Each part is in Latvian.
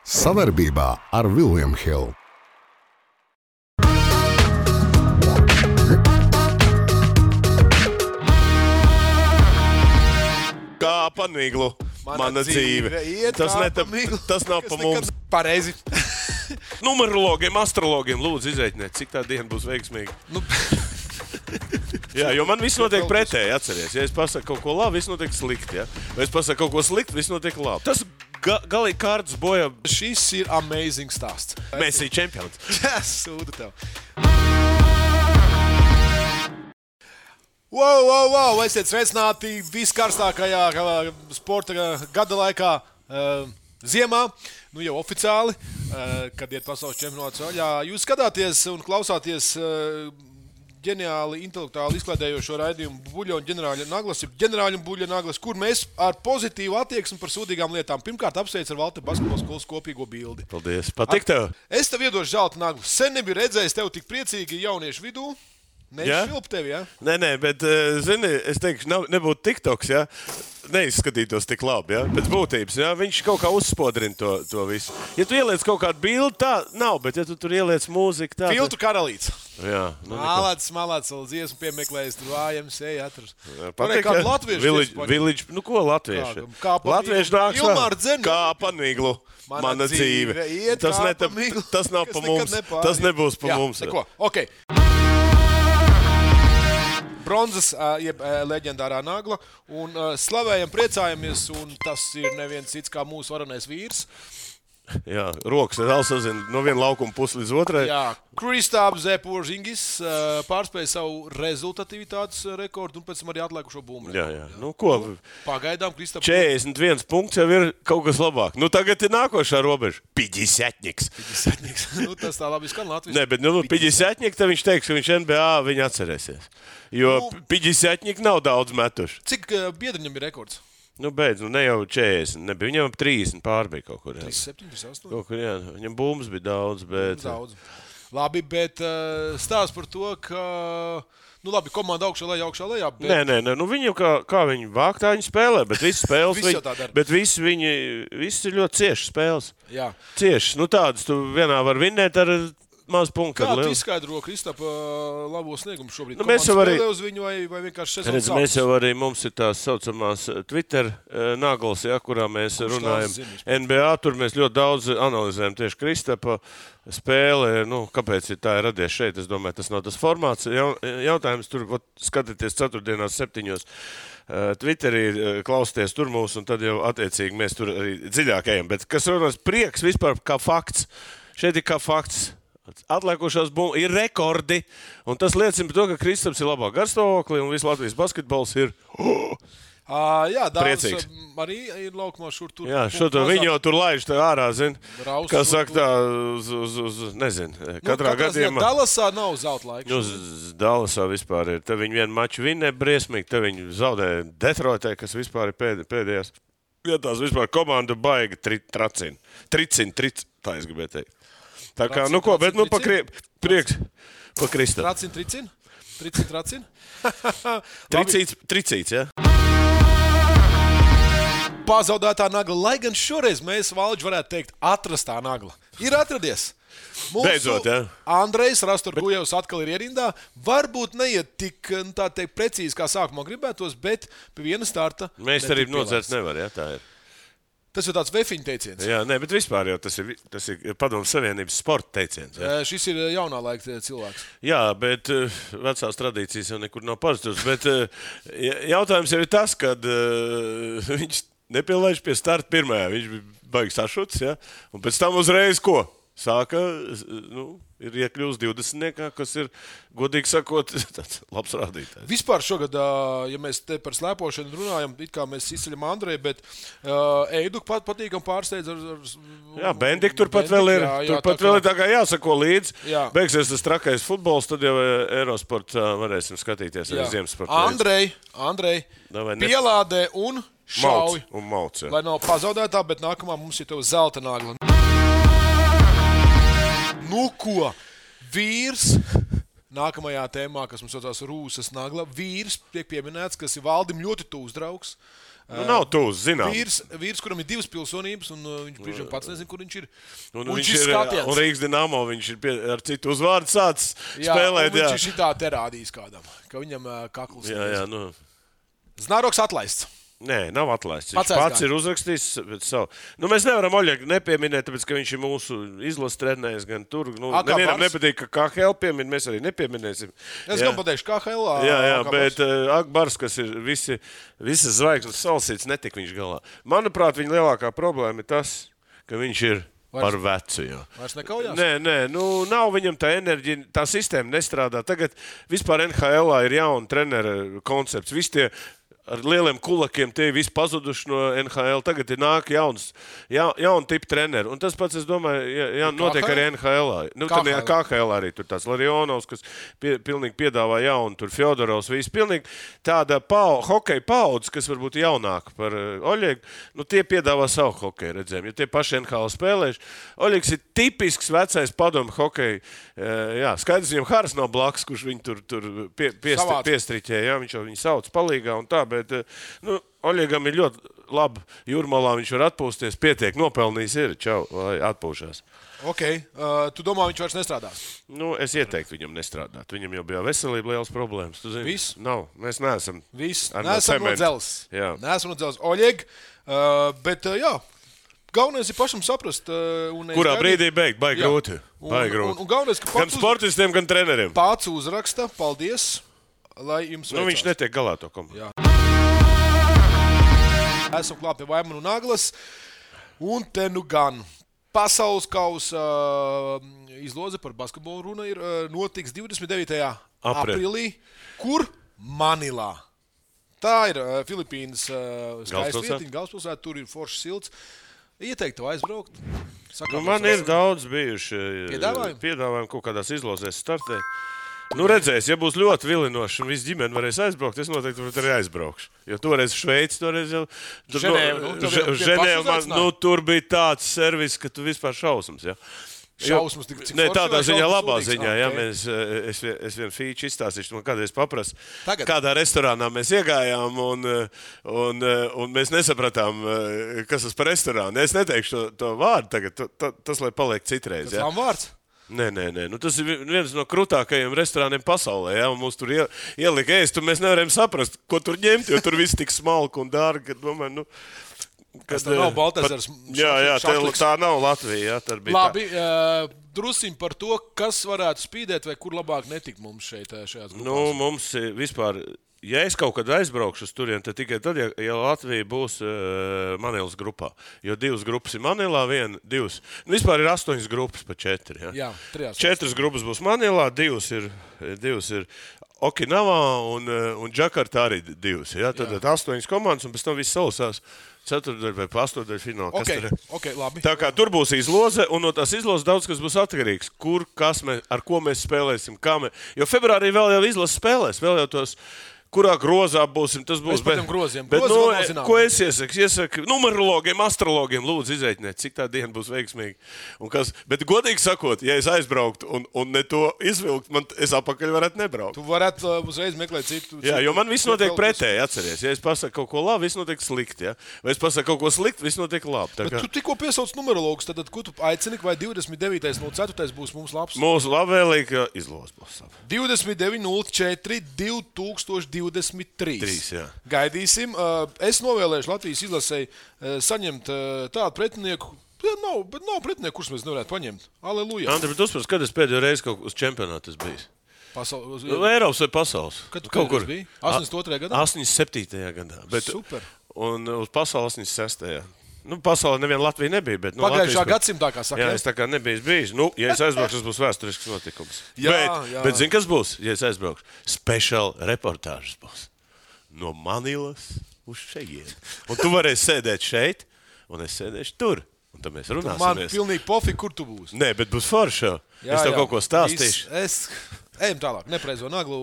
Savarbībā ar William Hill. Kā pa miglu, mana dzīve. Tas nav pa mums. Pareizi. Numerologiem, astrologiem lūdzu izreiķiniet, cik tā diena būs veiksmīga. Jā, jo man viss notiek pretēji, atceries. Ja es pasaku kaut ko labi, viss notiek slikti. Ja? Vai es pasaku kaut ko slikti, viss notiek labi. Tas galīgi kārtas boja. Šis ir amazing stāsts. Mēs ir čempions. Sūdu tev. Wow! Esiet sveicināti viskarstākajā sporta gada laikā ziemā. Nu jau oficiāli, kad iet pasaules čempionāts vaļā. Jūs skatāties un klausāties ģeniāli, intelektuāli izklaidējošo raidījumu Buļļa un ģenerāļa Naglas, ģenerāļa un Buļļa Naglas, kur mēs ar pozitīvu attieksmi par sūdīgām lietām. Pirmkārt, apsveicu ar Valti basketbola skolas kopīgo bildi. Paldies, patīk tev. Es tev iedošu zelta naglu. Sen nebiju redzējis tev tik priecīgi jauniešu vidū. Neizšvilp tevi, jā? Nē, bet, zini, es teikšu, nebūtu TikToks, jā, neizskatītos tik labi, jā, pēc būtības, jā, viņš kaut kā uzspodrina to visu. Ja tu ieliec kaut kādu bildi, tā nav, bet ja tu tur ieliec mūziku, tā... Filtru karalīts. Jā. Malāds, vēl dziesmu piemeklējis, tur vājams, atrast. Patīk, kādu latviešu Village, nu ko latvieši? Latvieši nāks kā pa miglu. Mana dzīve. Tas nav pa mums, tas nebūs pa mums. Neko, ok. Bronzas, jeb leģendārā nagla, un slavējam, priecājamies, un tas ir neviens cits kā mūsu varenais vīrs. Jā, rokas vēl sazina no viena laukuma pusi līdz otrai. Jā, Kristaps Porzingis pārspēja savu rezultatīvitātes rekordu un pēc tam arī atlikušo bumbu. Jā. Nu, ko? Pagaidām Kristaps 41 punkts jau ir kaut kas labāk. Nu, tagad ir nākošā robeža. 50-niks. Nu, tas tā labi skan Latvijas. Nē, bet 50-nik, tad viņš teiks, ka viņš NBA viņa atcerēsies. Jo 50-nik nav daudz metuši. Cik biedriņam ir rekords? Nu, beidz, ne jau 40, nebija. Viņam 30 pārbija kaut kur. 37, 38. Kaut kur, jā. Viņam bumbas bija daudz, bet... Daudz. Labi, bet stāsts par to, ka... Nu, labi, komanda augšā lejā, bet... Nē, nu viņi jau kā viņi vāk, tā viņi spēlē, bet visas spēles... Bet visi ir ļoti ciešas spēles. Jā. Ciešas. Nu, tādas tu vienā var vinnēt ar... Maz punktu. Kā tu izskaidro Kristapa labo sniegumu šobrīd? Nu, mēs jau arī spēlē uz viņu vai vienkārši sezonu sāks? Mēs jau arī, mums ir tās saucamās Twitter naglas, ja, kurā mēs runājam. NBA, tur mēs ļoti daudz analizējam tieši Kristapa spēle. Nu, kāpēc tā ir radies šeit? Es domāju, tas nav tas formāts. Jautājums tur, skatieties 4:07. Twitterī klausieties tur mūs, un tad jau attiecīgi mēs tur arī dziļāk ejam. Bet kas runās prieks vispār kā fakts? Šeit ir kā fakts. Atliekošās bumbas ir rekordi, un tas liecina par to, ka Kristaps ir labā garstāvoklī, un viss Latvijas basketbols ir jā, priecīgs. Arī ir laukumā šur tur. Jā, viņi jau tur laiž tā ārā, zin, kā saka tā, uz nezinu, katrā gadījumā. Dallasā nav zelta laiks. Nu, Dallasā vispār ir. Te viņi vienu maču vinnē briesmīgi, te viņi zaudē Detroitē, kas vispār ir pēdējās vietās. Vispār komanda baiga tricina, tā es gribēju teikt. Tā kā, nu ko, bet prieks pa Kristapu. Tricin? Tricīts, jā. Pazaudētā nagla, lai gan šoreiz mēs, Valģi, varētu teikt, atrastā nagla. Ir atradies. Beidzot, jā. Andrejs Rastorgujevs atkal ir ierindā. Varbūt neiet tik, tā teikt, precīzi, kā sākumā gribētos, bet pie viena starta. Mēs arī nodzert nevar, jā, tā ir. Tas ir tāds vefiņu teiciens. Jā, nē, bet vispār jau tas ir Padomu Savienības sporta teiciens. Jā. Šis ir jaunā laika cilvēks. Jā, bet vecās tradīcijas jau nekur nav pazudušas. Bet jautājums jau ir tas, kad viņš nepielaiž pie starta pirmajā. Viņš bija baigi sašuts, jā, un pēc tam uzreiz ko? Sāka, ir iekļūst 20, kas ir, godīgi sakot, tāds labs rādītājs. Vispār šogad, ja mēs te par slēpošanu runājam, it kā mēs izceļam Andreju, bet Eidu patīkam pārsteidz ar... Jā, Bendik turpat vēl ir, vēl ir tā kā jāsako līdz. Jā. Beigsies tas trakais futbols, tad jau Eurosport varēsim skatīties arī Ziemasporta. Andrej, pielādē un šauj. Mauc, jā. Lai nav pazaudētā, bet nākamā mums ir tev zelta nagla. Nu ko, vīrs nākamajā tēmā, kas mums saucās Rūsas Nagla, vīrs tiek pieminēts, kas ir Valdim ļoti tūs draugs. Nav tūs, zinām. Vīrs, kuram ir 2 pilsonības, un viņš brīžiem pats nezina, kur viņš ir. Un viņš ir skatiens. Un Rīgas Dinamo, viņš ir ar citu uzvārdu sācis spēlēt. Viņš ir šitā te rādījis kādam, ka viņam kakls. Jā. Znaroks atlaists. Nē, nav atlaists. Viņš pats ir uzrakstījis savu. Mēs nevaram Oļegu nepieminēt, tāpēc, ka viņš ir mūsu izlases trenējis gan tur. Nevienam nepatīk, ka KHL piemin, mēs arī nepieminēsim. Es gan pateikšu KHL. Jā, bet Akbars, kas ir visas zvaigznes salasīts, netik viņš galā. Manuprāt, viņa lielākā problēma ir tas, ka viņš ir par vecu. Vairs nekaujās? Nē, nav viņam tā enerģija, tā sistēma nestrādā. Tagad vispār NHL ir jauna trenera koncepts. Visi tie ar lieliem kulakiem tie visi pazuduši no NHL. Tagad ir nāk jauna tipa treneri. Un tas pats, es domāju, notiek arī NHL. KHL arī tur tāds Larionovs, kas pilnīgi piedāvā jaunu, tur Fjodorovs, visi pilnīgi tāda hokeja paudze, kas varbūt jaunāka par Oļegu. Tie piedāvā savu hokeju redzējumu, jo tie paši NHL spēlējuši. Oļegs ir tipisks vecais padomu hokeja. Jā, skaidrs, viņam Haras nav blakus, kurš viņu tur piestriķē. Jā, viņš jau viņu sauc palīgā un tā. Bet Oļegam ir ļoti labi. Jūrmalā viņš var atpūsties, pietiek, nopelnījis ir. Čau, lai atpūšās. Ok. Tu domā, viņš vairs nestrādās? Es ieteiktu viņam nestrādāt. Viņam jau bija veselība liels problēmas. Tu zini? Viss? Nav. Mēs neesam. Viss. Neesam no dzeles. Jā. Neesam no dzeles. Oļeg. Bet, jā. Galvenais ir pašam saprast. Kurā brīdī beigt? Baigi grūti. Un galvenais, ka gan sportistiem, gan treneriem. Pats uzraksta. Paldies. Lai jums veicās. Viņš netiek galā to komandu. Esam klāt pie Vaimanu Naglas. Un te gan pasaules kausa izloze par basketbolu runa ir notiks 29. aprīlī. Kur? Manilā. Tā ir Filipīnas skaistvietiņa, galvaspilsēta. Tur ir foršs silts. Ieteiktu aizbraukt. Man ir daudz bijuši piedāvājumi kaut kādās izlozēs startēt. Redzēs, ja būs ļoti vilinoši un viss ģimene varēs aizbraukt, es noteikti arī aizbraukšu. Jo toreiz Šveici, toreiz jau... Ženēva, tur bija tāds servis, ka tu vispār šausmas, jā. Šausmas, cik ne, tādā ziņā, labā ziņā, jā, es vienu fīču izstāstīšu, man kādreiz paprasu, kādā restorānā mēs iegājām un mēs nesapratām, kas tas par restorānu. Es neteikšu to vārdu tagad, tas lai paliek citreiz, jā. Tas nav vārds? Nē. Tas ir viens no krutākajiem restorāniem pasaulē. Ja? Mums tur ielika ēst, un mēs nevarējām saprast, ko tur ņemt, jo tur viss tik smalki un dārgi. Domāju, kas tā nav Baltazars? Jā, tā nav Latvija. Jā, labi, drusiņ par to, kas varētu spīdēt vai kur labāk netikt mums šajās grupās. Mums vispār... Ja es kaut kad aizbraukšu uz turien, tad tikai tad, ja Latvija būs Manilas grupā. Jo 2 grupas ir Manilā, 2. Vispār ir 8 grupas pa 4. Jā, 4 grupas būs Manilā, 2 ir Okinavā un Džakartā arī 2. Ja? Tad 8 komandas un pēc tam viss salasās 4. vai 8. finālā. Okay, labi. Tā kā tur būs izloze, un no tās izlozes daudz kas būs atkarīgs. Kur, ar ko mēs spēlēsim, jo februārī vēl jau izlase spēlēs, vēl jau tos... Kurā grozā būsim, tas būs. Bet groziem. Ko es iesaku? Iesaku numerologiem, astrologiem, lūdzu izreiķiniet, cik tā diena būs veiksmīga. Bet godīgi sakot, ja es aizbrauktu un ne to izvilkt, es apakaļ varētu nebraukt. Tu varētu uzreiz meklēt citu. Jā, jo man viss notiek pretēji, atceries. Ja es pasaku kaut ko labi, viss notiek slikti. Ja? Vai es pasaku kaut ko slikti, viss notiek labi. Bet tu tikko piesauc numerologus, tad ko tu aicini, vai 29.04. būs mums labs? Mūsu labvēlīga izloze būs. 29.04. 2023. Gaidīsim. Es novēlēšu Latvijas izlasei saņemt tādu pretinieku. Nav pretinieku, kurus mēs nevarētu paņemt. Aleluja. Andri, bet uzprast, kad es pēdējo reizi kaut uz čempionātu esmu bijis? Eiropas vai pasaules? Kad tu kaut kur biji? 82. gadā? 87. gadā. Super. Un uz pasaules 86. Pasaulē neviena Latvija nebija. Bet, pagājušā gadsimtā, kā saka. Jā, es tā kā nebiju bijis. Ja es aizbraukšu, tas būs vēsturisks notikums. Bet zini, kas būs, ja es aizbraukšu? Special reportāžas būs. No Manilas uz šeit. Un tu varēsi sēdēt šeit, un es sēdēšu tur. Un tad mēs runāsimies. Man pilnīgi pofīgi, kur tu būsi. Nē, bet būs forša. Es tev kaut ko stāstīšu. Ejam tālāk, nepreizo Naglu.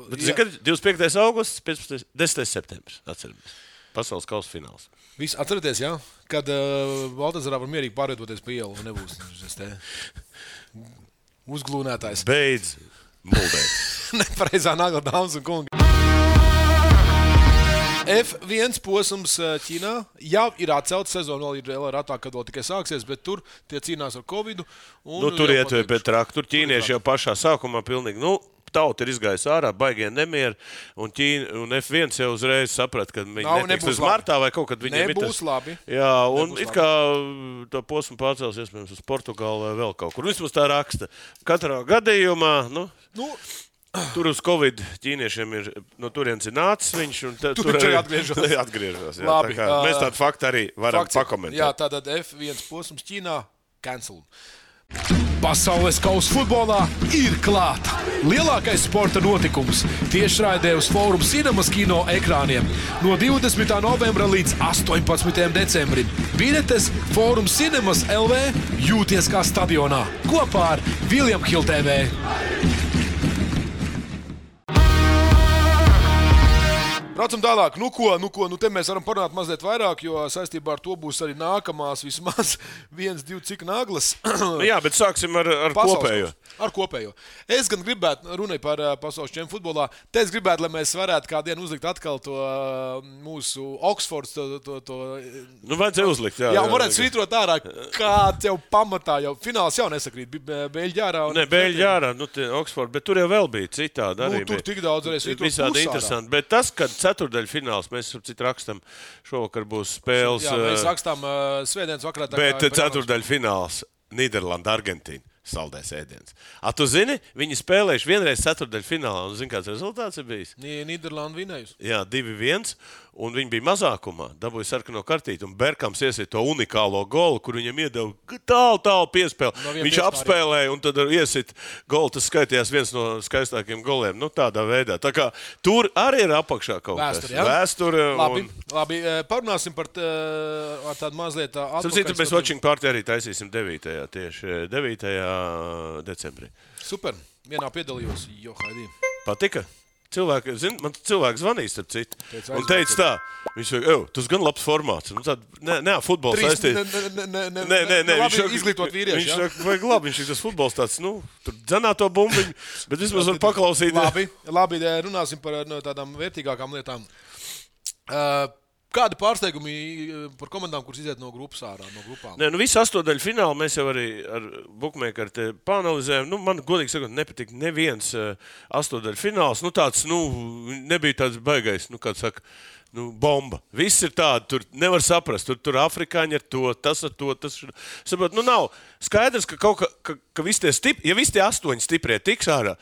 Bet zini, kad 25. augusts, 10. septembris, atceramies. Pasaules kausa fināls. Viss atceraties, jā? Kad Baltazarā var mierīgi pārvietoties pa ielu un nebūs uzglūnētājs. Beidz muldēt. Nepareizā nagla, dāmas un kungi. F1 posms Ķīnā jau ir atcelts, sezona vēl ir ratā, kad vēl tikai sāksies, bet tur tie cīnās ar Covidu. Tur ietver pie traka, tur ķīnieši jau pašā sākumā pilnīgi, tauta ir izgājusi ārā, baigie nemieri, un F1 jau uzreiz saprata, ka viņi netiks līdz martā vai kaut kad viņiem nebūs labi. Jā, un it kā to posmu pārcels iespējams uz Portugālu vai vēl kaut kur. Vismaz tā raksta. Katrā gadījumā, tur uz Covid ķīniešiem ir, no turienes ir nācis viņš, un tur arī atgriežas. Jā, labi, mēs tādu faktu arī varam pakomentēt. Jā, tātad F1 posms Ķīnā cancel. Pasaules kausa futbolā ir klāta. Lielākais sporta notikums tiešraidē uz Forum Cinemas kino ekrāniem no 20. novembra līdz 18. decembrim. Biļetes Forum Cinemas LV jūties kā stadionā kopā ar William Hill TV. Braucam tālāk. Te mēs varam parunāt mazliet vairāk, jo saistībā ar to būs arī nākamās vismaz 1-2 cik naglas. Jā, bet sāksim ar kopējo. Ar kopējo. Es gan gribētu, runāju par pasaules čempionu futbolā, te es gribētu, lai mēs varētu kādienu uzlikt atkal to mūsu Oxfords. Vajadzēja uzlikt, jā. Jā, varētu svītrot ārā, kāds jau pamatā, jau fināls jau nesakrīt. Beļģi ārā. Ne, Beļģi ārā, Oxford, bet tur jau vēl bija citādi arī. Tur tik daudz arī svītrot visādi interesanti, bet tas, kad ceturdaļfināls, mēs rakstam, šovakar būs spēles. Jā, mēs rakstām svētdienas vakarā. Bet ceturdaļfināls Nīderlanda, Argentīna. Saldais ēdiens. Tu zini, viņi spēlējuši vienreiz ceturdaļfinālā, un zini, kāds rezultāts ir bijis? Nīderlanda vinējusi. Jā, 2-1, un viņi bija mazākumā, dabūja sarkano kartīti, un Berkams iesiet to unikālo golu, kur viņam iedeva tālu piespēli. Viņš apspēlēja, un tad iesiet golu, tas skaitījās viens no skaistākiem goliem, tādā veidā. Tā kā tur arī ir apakšā kaut kas. Vēsture. Labi, parunāsim par tādu mazliet atpakaļ. Sapratu, mēs watching party arī taisīsim 9. decembrī. Super. Vienā piedalījos. Haidī. Patika? Man cilvēks zvanīja, starp citu. Un teica tā, viņš saka, tas gan labs formāts. Futbols saistīts. Nē, izglītot vīrieši. Viņš saka, vajag labi, viņš ir tas futbols tāds, tur dzenā to bumbiņu, bet vismaz var paklausīt. Labi, runāsim par tādām vērtīgākām lietām. Kādi pārsteigumi par komandām, kuras iziet no grupas ārā, no grupām? Nē, visu astodaļu finālu mēs jau arī ar bookmakeru pāanalizējām. Man, godīgi sakot, nepatika neviens astodaļu fināls. Tāds, nebija tāds baigais, kā saka, bomba. Viss ir tādi, tur nevar saprast. Tur afrikāņi ar to, tas ar to. Saprot, nav skaidrs, ka visi tie ja visi tie 8 stiprie tiks ārā,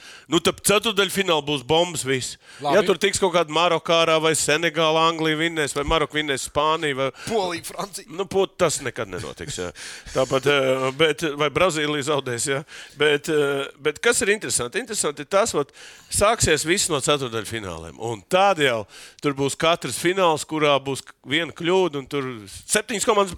tad ceturdaļfināli būs bombas viss. Labi. Ja tur tiks kaut kāda Maroka ārā vai Senegāla, Anglija vinnēs, vai Maroka vinnēs Spānija vai Polija, Francija. Tas nekad nenotiks. Jā. Tāpat, vai Brazīlija zaudēs. Jā. Bet kas ir interesanti? Interesanti ir tas, sāksies viss no ceturdaļfināliem. Un tad jau tur būs katrs fināls, kurā būs viena kļūda, un tur 7 komandas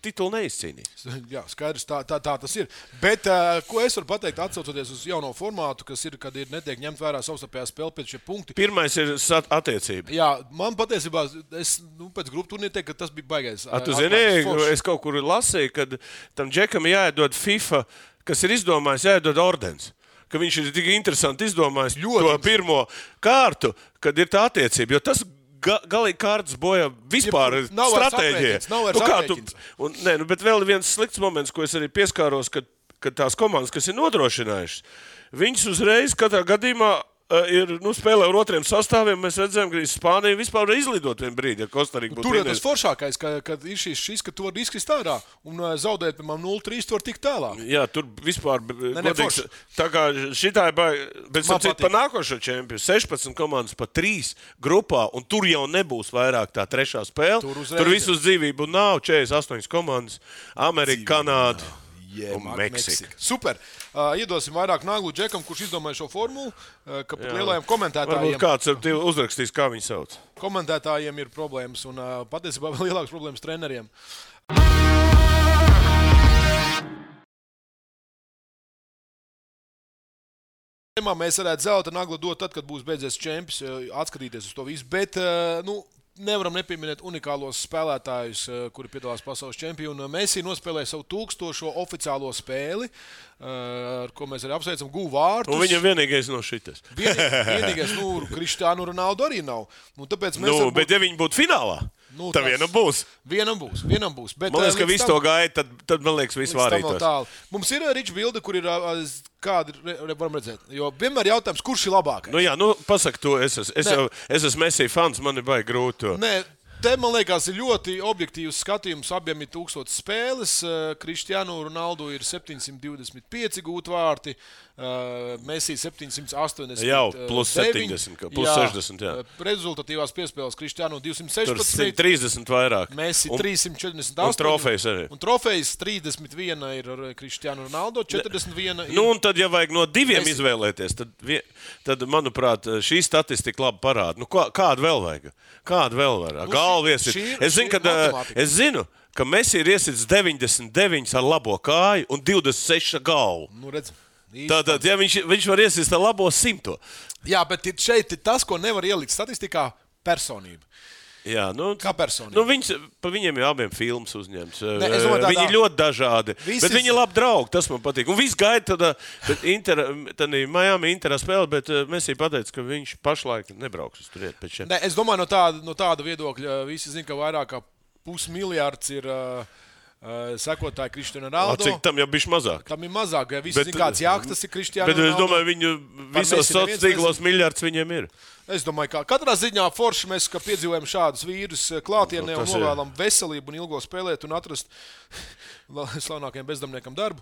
titulu neizcīnīs. Jā, skaidrs, tā tas ir. Bet, ko es varu pateikt, atsaucoties uz jauno formātu, kas ir, kad netiek ņemt vērā savstarpējā spēle pēc šie punkti? Pirmais ir attiecība. Jā, man patiesībā, es pēc grupu turnīra teiktu, ka tas bija baigais. Tu zini, es kaut kur lasīju, kad tam džekam jāiedod FIFA, kas ir izdomājis, jāiedod ordens. Ka viņš ir tik interesanti izdomājis to pirmo kārtu, kad ir tā attiecība. Jo tas galīgi kārtas bojā vispār stratēģija. Bet vēl viens slikts moments, ko es arī pieskāros, kad tās komandas, kas ir nodrošinājušas, viņas uzreiz katrā gadījumā spēlē ar otriem sastāviem. Mēs redzējām, ka Spānija vispār var izlidot vienu brīdi, ja Kostarika būtu. Tur ir tas foršākais, kad ir šis, ka tu vari izkrist ārā un zaudēt, piemēram, 0-3, tu vari tikt tālāk. Jā, tur vispār godīgs. Tā kā šitā ir bet par nākošo čempionu 16 komandas pa 3 grupā, un tur jau nebūs vairāk tā trešā spēle. Tur visus dzīvību nav, 48 komandas, Amerika, Kanāda. Un Meksika. Super. Iedosim vairāk naglu džekam, kurš izdomāja šo formulu, ka pat lielajiem komentētājiem. Varbūt kāds uzrakstīs, kā viņi sauc. Komentētājiem ir problēmas un patiesībā vēl lielākas problēmas treneriem. Mēs varētu zelta naglu dot tad, kad būs beidzies čempions, atskatīties uz to visu, bet, nevaram nepieminēt unikālos spēlētājus, kuri piedalās pasaules čempionu. Messi nospēlēja savu 1000. oficiālo spēli, ar ko mēs arī apsveicam, guva vārtus. Un viņam vienīgais no šitas. Vienīgais, Cristiano Ronaldo arī nav. Tāpēc mēs bet ja viņi būtu finālā, tad vienam būs. Vienam būs. Bet, man liekas, ka viss to gaida, tad man liekas, viss vārītos. Mums ir Ričs bilde, kur ir kādi, varam redzēt. Jo vienmēr jautājums, kurš ir labākais? Nu jā, pasaka to, es esmu Messi fans, man ir baigi grūti to. Nē, te, man liekas, ir ļoti objektīvs skatījums. Abiem ir 1000 spēles. Cristiano Ronaldo ir 725 gūti vārti. Messi 780. Jau, plus 70, plus 60, jā. Rezultatīvās piespēles Cristiano 216. Tur 30 vairāk. Messi 348. Un trofejs arī. Un trofejs 31 ir ar Cristiano Ronaldo, 41 ir. Un tad, ja vajag no diviem Messi izvēlēties, tad manuprāt, šī statistika labi parāda. Kādu vēl vajag? Kādu vēl var? Galvies ir. Es zinu, ka Messi ir iesits 99 ar labo kāju un 26 ar galvu. Redz. Tātad, ja viņš var iesist ar labo 100. Jā, bet šeit ir tas, ko nevar ielikt statistikā - personība. Jā, kā personība. Viņiem ir abiem filmas uzņemts. Viņi ir ļoti dažādi, bet viņi ir labi draugi, tas man patīk. Un viss gaida tad Miami Interā spēle, bet Messi pateica, ka viņš pašlaik nebrauks uz turieni pēc šiem. Es domāju, no tāda viedokļa visi zina, ka vairāk kā 500 miljārds ir sekotāji Cristiano Ronaldo. Cik tam jau bišķi mazāk? Tam ir mazāk, ja visi zina, kāds jāktas ir Cristiano Ronaldo. Bet es domāju, viņu visos sociālos tīklos miljards viņiem ir. Es domāju, ka katrā ziņā forši mēs piedzīvojam šādus vīrus klātienē un novēlam veselību un ilgo spēlēt un atrast slavenākajiem bezdarbniekam darbu.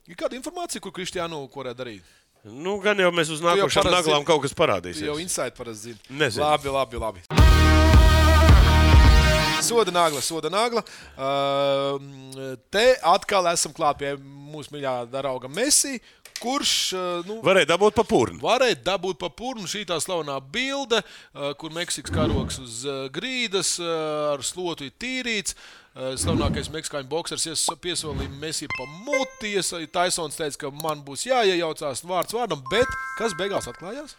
Ir kāda informācija, ko Cristiano varētu darīt? Gan jau mēs uz nākošām naglām kaut kas parādīsies. Jau insight parasti zina. Nezinu. Labi. Soda nagla. Te atkal esam klāt pie mūsu mīļā drauga Messi, kurš varēja dabūt pa purnu. Šī tā slavenā bilde, kur Meksikas karogs uz grīdas ar slotu ir tīrīts. Slavenākais meksikāņu boksers piesolīja Messi pa muti. Taisons teica, ka man būs jāiejaucās vārds vārdam, bet kas beigās atklājās?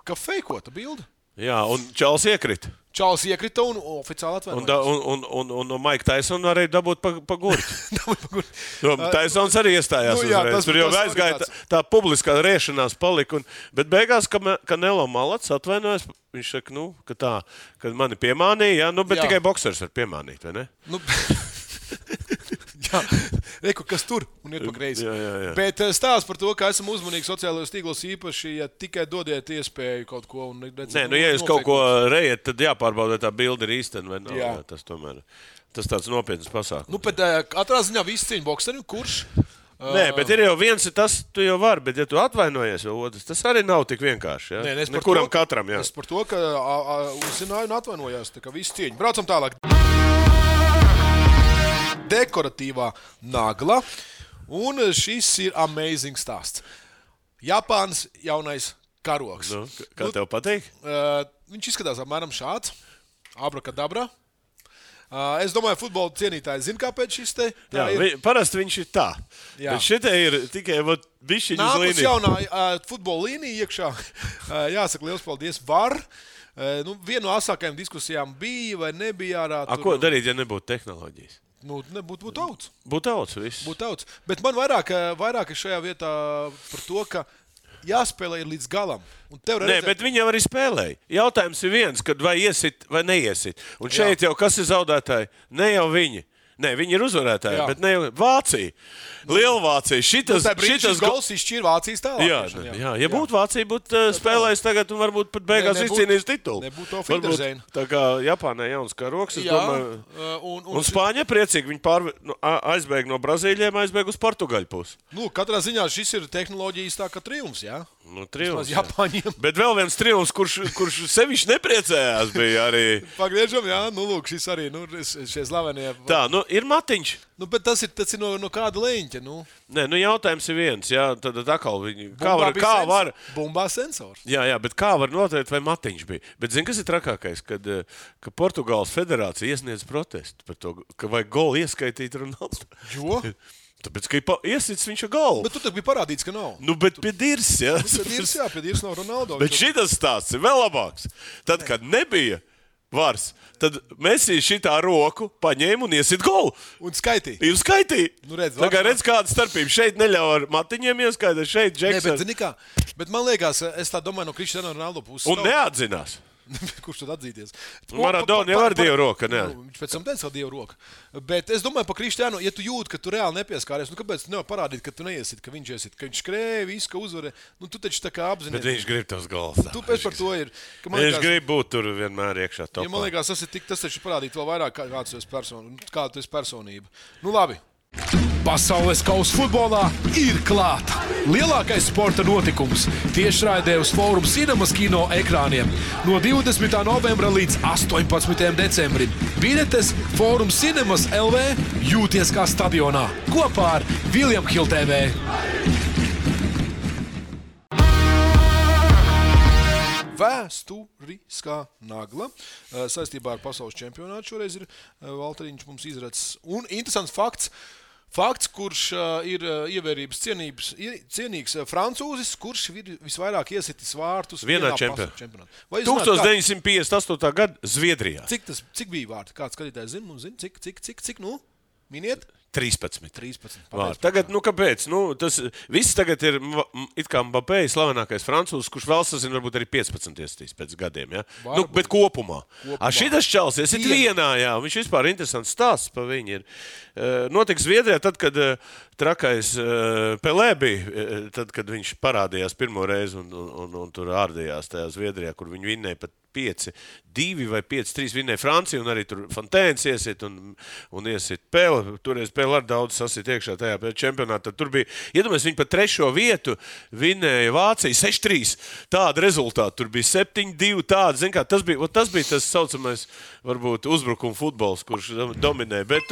Ka feikota bilde. Jā, un Čāls iekrita un oficiāli atvainojās. Un no Maika Taisona arī dabūt pa gurķi. Taisons arī iestājās uzreiz. Tur jau aizgāja tā publiskā riešanās palika. Bet beigās, ka Nelo Malats atvainojas, viņš saka, ka mani piemānīja, bet tikai boksers var piemānīt, vai ne? Jā, reku, kas tur un ir pa greizi. Jā. Bet stāsts par to, ka esam uzmanīgi sociālajos tīklos īpaši, ja tikai dodiet iespēju kaut ko. Ja jūs kaut ko rejiet, tad jāpārbauda, vai tā bilde ir īstena vai nav. Jā, tas tāds nopietns pasākums. Bet katrā ziņā visi cīņa bokserim, kurš? Nē, bet ir jau viens, tas tu jau vari, bet ja tu atvainojies vēl otrs, tas arī nav tik vienkārši. Ja? Nekuram katram, jā. Es par to, ka uzzināju un atvainojās, tā kā visi cīņa. Braucam tālāk. Dekoratīvā nagla, un šis ir amazing stāsts. Japānas jaunais karogs. Kā tev patīk? Viņš izskatās apmēram šāds. Abrakadabra. Es domāju, futbola cienītāji zina, kāpēc šis te ir. Parasti viņš ir tā. Jā. Bet šitie ir tikai bišķiņu uz līniju. Nākus jaunā futbola līnija iekšā. Jāsaka, liels paldies. Var. Viena no asākajām diskusijām bija vai nebija ārā. Ko darīt, ja nebūtu tehnoloģijas? Būtu tauts. Būtu tauts. Bet man vairāk ir šajā vietā par to, ka jāspēlē līdz galam. Nē, bet viņi jau arī spēlēja. Jautājums ir viens, kad vai iesit vai neiesit. Un šeit jau kas ir zaudētāji? Ne jau viņi. Nē, viņi ir uzvarētāji, bet ne jau Vācija. Lielvācija. Šitas gols izšķīra Vācijas tālāk. Jā. Ja būtu Vācija, būtu spēlējis tagad un varbūt pat beigās izcīnījis titulu. Nebūtu to Finderzēna. Tā kā Japānai jauns karoks, es domāju. Un Spāņa priecīgi. Viņi aizbēg no Brazīļiem, aizbēg uz Portugaļu pusi. Katrā ziņā šis ir tehnoloģijas tā kā triumfs, jā? Triumfs. Japāņiem. Bet vēl viens triumfs, kurš sevišķi nepriecējās, bija arī. Pagriežam, jā, lūk, šis arī, šie slavenie. Tā, ir matiņš. Bet tas ir no kāda leņķa, Nē, jautājums ir viens, jā, tad atkal viņi. Kā var? Bumbā sensors. Jā, bet kā var noteikt, vai matiņš bija? Bet zini, kas ir trakākais, ka Portugāles federācija iesniedz protestu par to, ka vajag golu ieskaitīt Ronaldo. Jo? Tāpēc, ka iesits viņš ar galvu. Bet tu tad bija parādīts, ka nav. Nu, bet pie dirs, jā. Pie dirs nav Ronaldo. Bet šitas stāsts ir vēl labāks. Tad, kad nebija vars, tad Messi šitā roku paņēma un iesit golu. Un skaitīja. Ir skaitīja. Nu, redz, kāda starpība. Šeit neļauj ar matiņiem ieskaitīt, šeit Džeks. Bet, zini kā, bet man liekas, es tā domāju no Cristiano Ronaldo puses. Un neatzinās. Kurš tad atzīties? Maradona jau ar Dievu roku, ne? Viņš pēc tam teica, ka Dievu roku. Bet es domāju par Kristiānu, ja tu jūti, ka tu reāli nepieskāries, nu kāpēc tu nevar parādīt, ka tu neiesit, ka viņš iesit, ka viņš skrēja, visu, ka uzvarē. Nu tu taču tā kā apzinies. Bet viņš grib tos gols. Tu pēc par to ir. Viņš grib būt tur vienmēr iekšā topā. Ja man liekas, tas taču parādīt vēl vairāk, kāda tu esi personība. Nu labi. Pasaules kausa futbolā ir klāta. Lielākais sporta notikums tiešraidē uz Fórums Cinemas kino ekrāniem no 20. novembra līdz 18. decembrim. Biļetes Fórums Cinemas LV jūties kā stadionā kopā ar William Hill TV. Vēsturiskā nagla saistībā ar pasaules čempionātu. Šoreiz ir Valteriņš mums izracis. Un interesants fakts, kurš ir ievērības cienīgs francūzis, kurš ir visvairāk iesitis vārtus vienā čempionātā. 1958. gada Zviedrijā. Cik bija vārti? Kāds skatītājs zina? Cik nu? Miniet? 13. Vārti. Tagad, kāpēc? Tas viss tagad ir it kā Mbappé, slavenākais francūzs, kurš vēl sazina, varbūt arī 15 iestīs pēc gadiem, ja? Bet kopumā. Šitas čals iesit vienā, jā. Viņš vispār interesants stāsts pa viņu ir. Notiks Zviedrijā tad, kad trakais Pelē bija, tad, kad viņš parādījās pirmo reizi un tur ārdījās tajā Zviedrijā, kur viņi vinnēja pat 5-2 vai 5-3 vinnēja Franciju, un arī tur Fontēns iesit un iesit Pele. Toreiz Pele ar daudz sasit iekšā tajā čempionātā. Tur bija, iedomājies, viņi pa 3. vietu vinnēja Vācija 6-3. Tāda rezultāta. Tur bija 7-2 tāda. Zin kā, tas bija tas saucamais, varbūt, uzbrukuma futbols, kurš dominē. Bet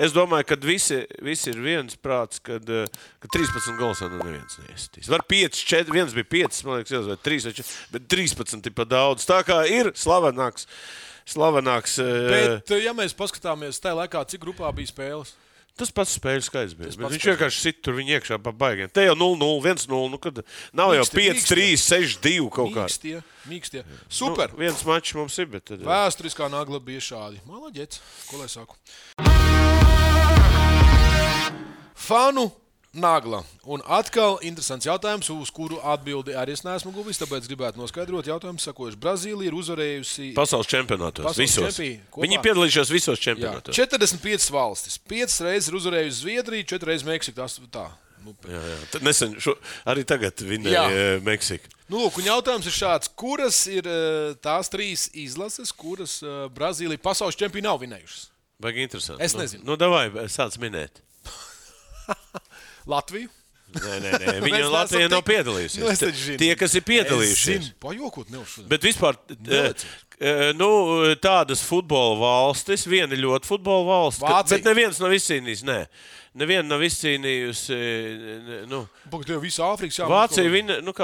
es domāju, ka visi ir viens prāts, ka 13 gols no neviens neiesitīs. Var 5-4, viens bija 5, man liekas, vai 3, bet 13 ir pa daudz. Tā kā ir slavenāks. Bet, ja mēs paskatāmies tajā laikā, cik grupā bija spēles? Tas pats spēļu skaits bija. Viņš vienkārši sit tur viņa iekšā pa baigiem. Te jau 0-0, 1-0, kad nav jau 5-3, 6-2 kaut kā. Mīkstie. Super. Viens mačs mums ir, bet tad... Vēsturiskā nagla bija šādi. Malaģets, ko lai saku? Fanu nagla. Un atkal interesants jautājums, uz kuru atbildi arī es neesmu guvis, tāpēc gribētu noskaidrot jautājumu, sakojuši. Brazīlija ir uzvarējusi pasaules čempionātos. Visos. Viņi piedalījušās visos čempionātos. 45 valstis. 5 reizes ir uzvarējusi Zviedrija, 4 reizes Meksika. Tā. Jā. Tad nesen, arī tagad vinnēja Meksika. Lūk, un jautājums ir šāds. Kuras ir tās 3 izlases, kuras Brazīlija pasaules čempioni nav vinējušas? Baigi interesanti. Es nezinu. Davai, sāc minēt. Latviju? Nē. Viņa Latvijā nav piedalījusies. Tie, kas ir piedalījušies. Es zinu, pajokot neuzšodien. Bet vispār, tādas futbola valstis, viena ļoti futbola valsts, bet neviens nav izcīnījis, Neviena nav izcīnījusi, Pagad, tev visu Āfrikas Vācija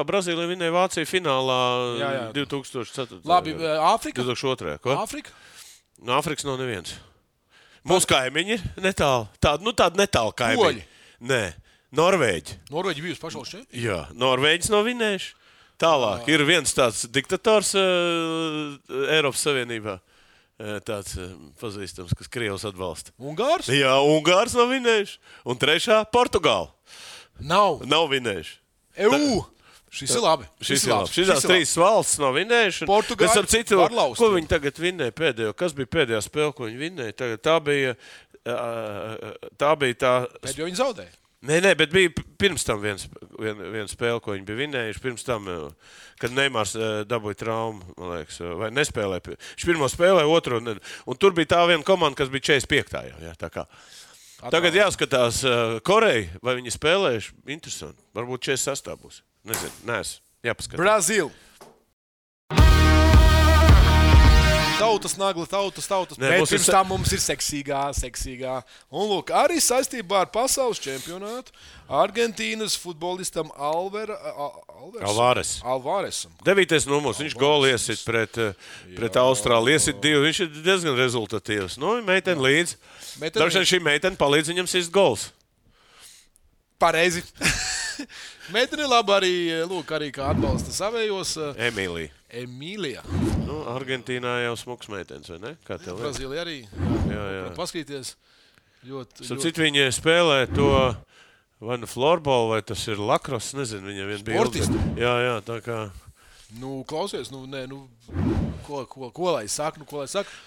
Brazīlija vinnēja Vāciju finālā 2004. Labi, Āfrika? 2002. Ko? Āfrika? No Āfrikas nav neviens. Mūsu kaimiņi ir netālu. Tāda netālu kaimiņi. Poļi? Nē. Norvēģi. Norvēģi bijusi pasaules čempioni? Jā, Norvēģis nav vinējuši. Tālāk ir viens tāds diktators Eiropas Savienībā. Tāds pazīstams, kas Krievs atbalsta. Ungārs? Jā, Ungārs nav vinējuši. Un trešā Portugāla. Nav vinējuši. Šis ir labi. Šīs 3 valsts nav vinējuši. Portugāla var laust. Ko viņi tagad vinnēja pēdējo? Kas bija pēdējā spēle, ko viņi vinnēja? Tagad tā bija tā... Pēdējo viņi zaudēja. Nē, bet bija pirms tam viena spēle, ko viņi bija vinnējuši. Pirms tam, kad Neimārs dabūja traumu, man liekas, vai nespēlēja. Viņš pirmo spēlēja, otro. Un tur bija tā viena komanda, kas bija 45. Jā, tā kā. Tagad jāskatās Koreja, vai viņi spēlējuši. Interesanti. Varbūt 46. būs. Nezinu, neesmu. Jāpaskatās. Brazīl. Tautas nagla, tautas. Bet pirms tam mums ir seksīgā. Un lūk, arī saistībā ar pasaules čempionātu Argentīnas futbolistam Alvaresam. 9. numurs, viņš golu iesit pret Austrāliju, iesit 2, viņš ir diezgan rezultatīvs. Meitene līdz. Dažreiz šī meitene palīdz viņam sist gols. Pareizi. Meitene labi arī, arī kā atbalsta savējos. Emīlija. Nu, Argentīnā jau smuks meitenes, vai ne? Kā tev? Brazīlija arī. Jā. Paskatīties. Citi viņi spēlē to vai nu floorballu, vai tas ir lakros, nezinu, viņam vien bija. Sportisti. Jā, tā kā. Klausies, ko lai saka,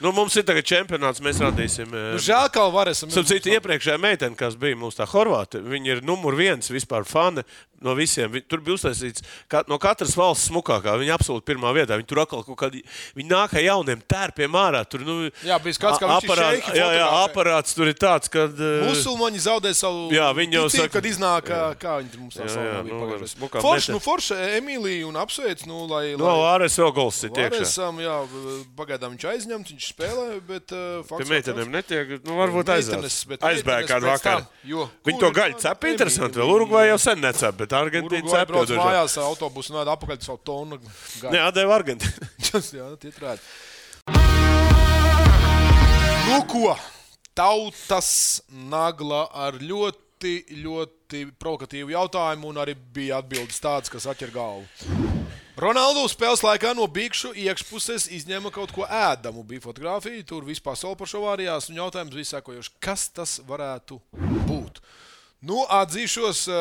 Mums ir tagad čempionāts, mēs radīsim. Žēl, kā varēsim. Cita iepriekšējā meitene, kas bija mūsu tā Horvāte, viņa ir numur 1 vispār fane no visiem. Tur bija uztaisīts no katras valsts smukākā. Viņa absolūti pirmā vietā. Viņa tur atkal kaut kādi, viņa nāk ar jauniem tērpiem ārā. Tur, jā, bija skats, kā viņš ir šeiki. Jā, aparāts tur ir tāds, kad... Musulmaņi zaudē savu ticību, kad iznāk, kā viņi tur mums tā salā. Forša Emīlija un apsveic, Āres vēl gols ir iekšā. Āresam, jā, pagaidām viņš aizņemts, viņš spēlē, bet... Pie meitenēm netiek, varbūt aizbēg kādu vakaru. Viņi to gaļu cep interesanti, vēl Urugvai jau sen necep, bet Argentīna cep. Urugvai brauc mājās autobusu un apakaļ savu tonu gaļu. Jā, deva Argentīna. Jā, tietrēt. Ko? Tautas nagla ar ļoti provokatīvu jautājumu un arī bija atbildes tādas, kas atķer galvu. Ronaldu spēles laikā no bikšu iekšpuses izņēma kaut ko ēdamu. Bija fotografija, tur viss pasaule par šo vārījās un jautājums bija sekojošs. Kas tas varētu būt? Atzīšos...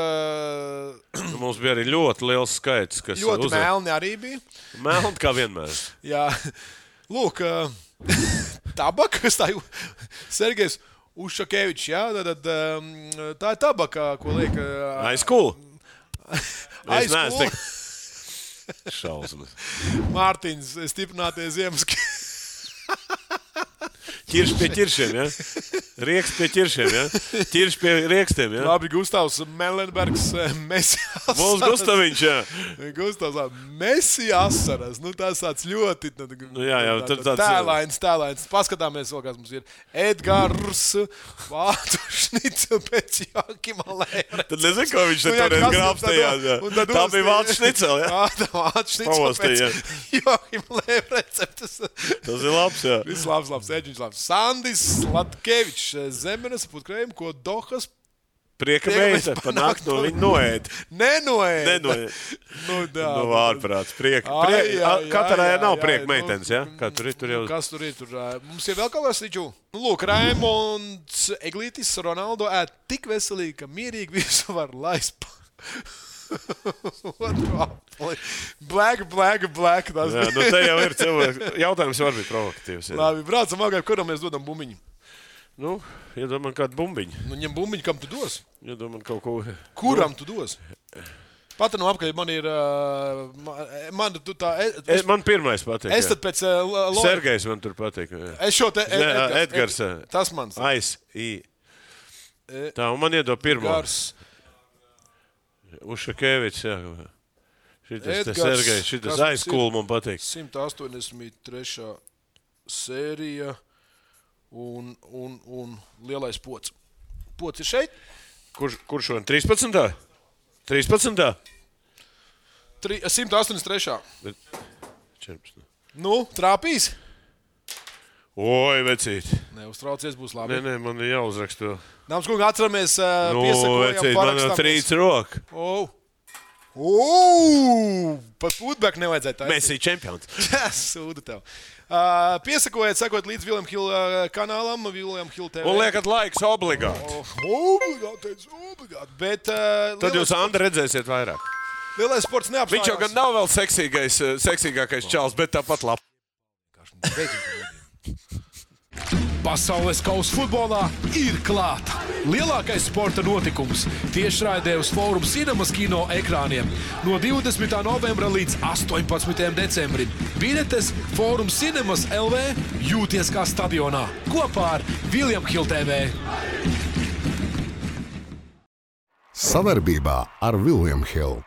Mums bija arī ļoti liels skaits, kas ļoti melni arī bija. Melni kā vienmēr. Jā. Lūk, tabaka, Sergejs Ušakevičs, jā, tad tā ir tabaka, ko liek... Aizkūl. Šausmas. Mārtiņš, stiprinātie ziemas. Ķirš pie ķiršiem, ja? Rieks pie ķiršiem, ja? Ķirš pie riekstiem, ja? Labi, Gustavs Melenbergs, Messi asaras. Mums Gustaviņš, jā. Gustavs Messi asaras. Tas tāds ļoti... Jā, tur tāds... Tēlains. Paskatāmies vēl, kas mums ir. Edgars Vācu šnicel pēc Jākima Lēvre. Tad nezinu, ko viņš te toreiz grābstījās, jā. Tā bija Vācu šnicel, jā? Tā Vācu šnicel pēc Jākima Lēvre receptes. Tas ir labs, jā. Viss labs, Eģiņš labs. Sandis Latkevičs, Zemenes putkrējumi, ko Dohas prieka meita panākt no viņa noēd. Nenoēd. Ārprāts. Katrai nav prieka meitenes, ja? Kā tur ir? Kas tur ir? Mums ir vēl kaut kas līdžu. Lūk, Raimonds Eglītis Ronaldo ēd tik veselīgi, ka mierīgi visu var laist. Black. Jā, te jau ir cilvēks. Jautājums var būt provokatīvs. Jā. Labi, braucam agāk, kuram mēs dodam bumbiņu? Iedomā kādu bumbiņu. Ņem bumbiņu, kam tu dos? Iedomā kaut ko. Kuram tu dos? Pat no apkaļ man ir... Man pirmais patīk. Es tad pēc... Sergejs man tur patīk. Es šo te... Edgars. Tas mans. Tā, un man iedod pirmo. Edgars. Ušakevičs, jā. Šitas te Sergejs, šitas aizkūl man patīk. 183. sērija un lielais pods. Pods ir šeit? Kurš šodien? 13. 13. 183. 14. Trāpīs? Oi, vecīt. Neuztraucies, būs labi. Nē, man ir jāuzraksta. Dāmas kungi, atceramies, piesakojam, vecīt, man jau trīc roka. Pat putbek nevajadzēja tā. Messi čempions. Sūda tev. Piesakojiet, sakot līdz William Hill kanālam, William Hill TV. Un liekat laiks obligāti. Obligāti. Bet... Tad jūs, Andri, redzēsiet vairāk. Lielais sports neapstājās. Viņš jau gan nav vēl seksīgākais čals, bet tāpat labi. Pasaules kausa futbolā ir klāta. Lielākais sporta notikums tiešraidē uz Fórum Cinemas kino ekrāniem no 20. novembra līdz 18. decembrim. Biļetes Fórum Cinemas LV jūties kā stadionā kopā ar William Hill TV. Savarbībā ar William Hill.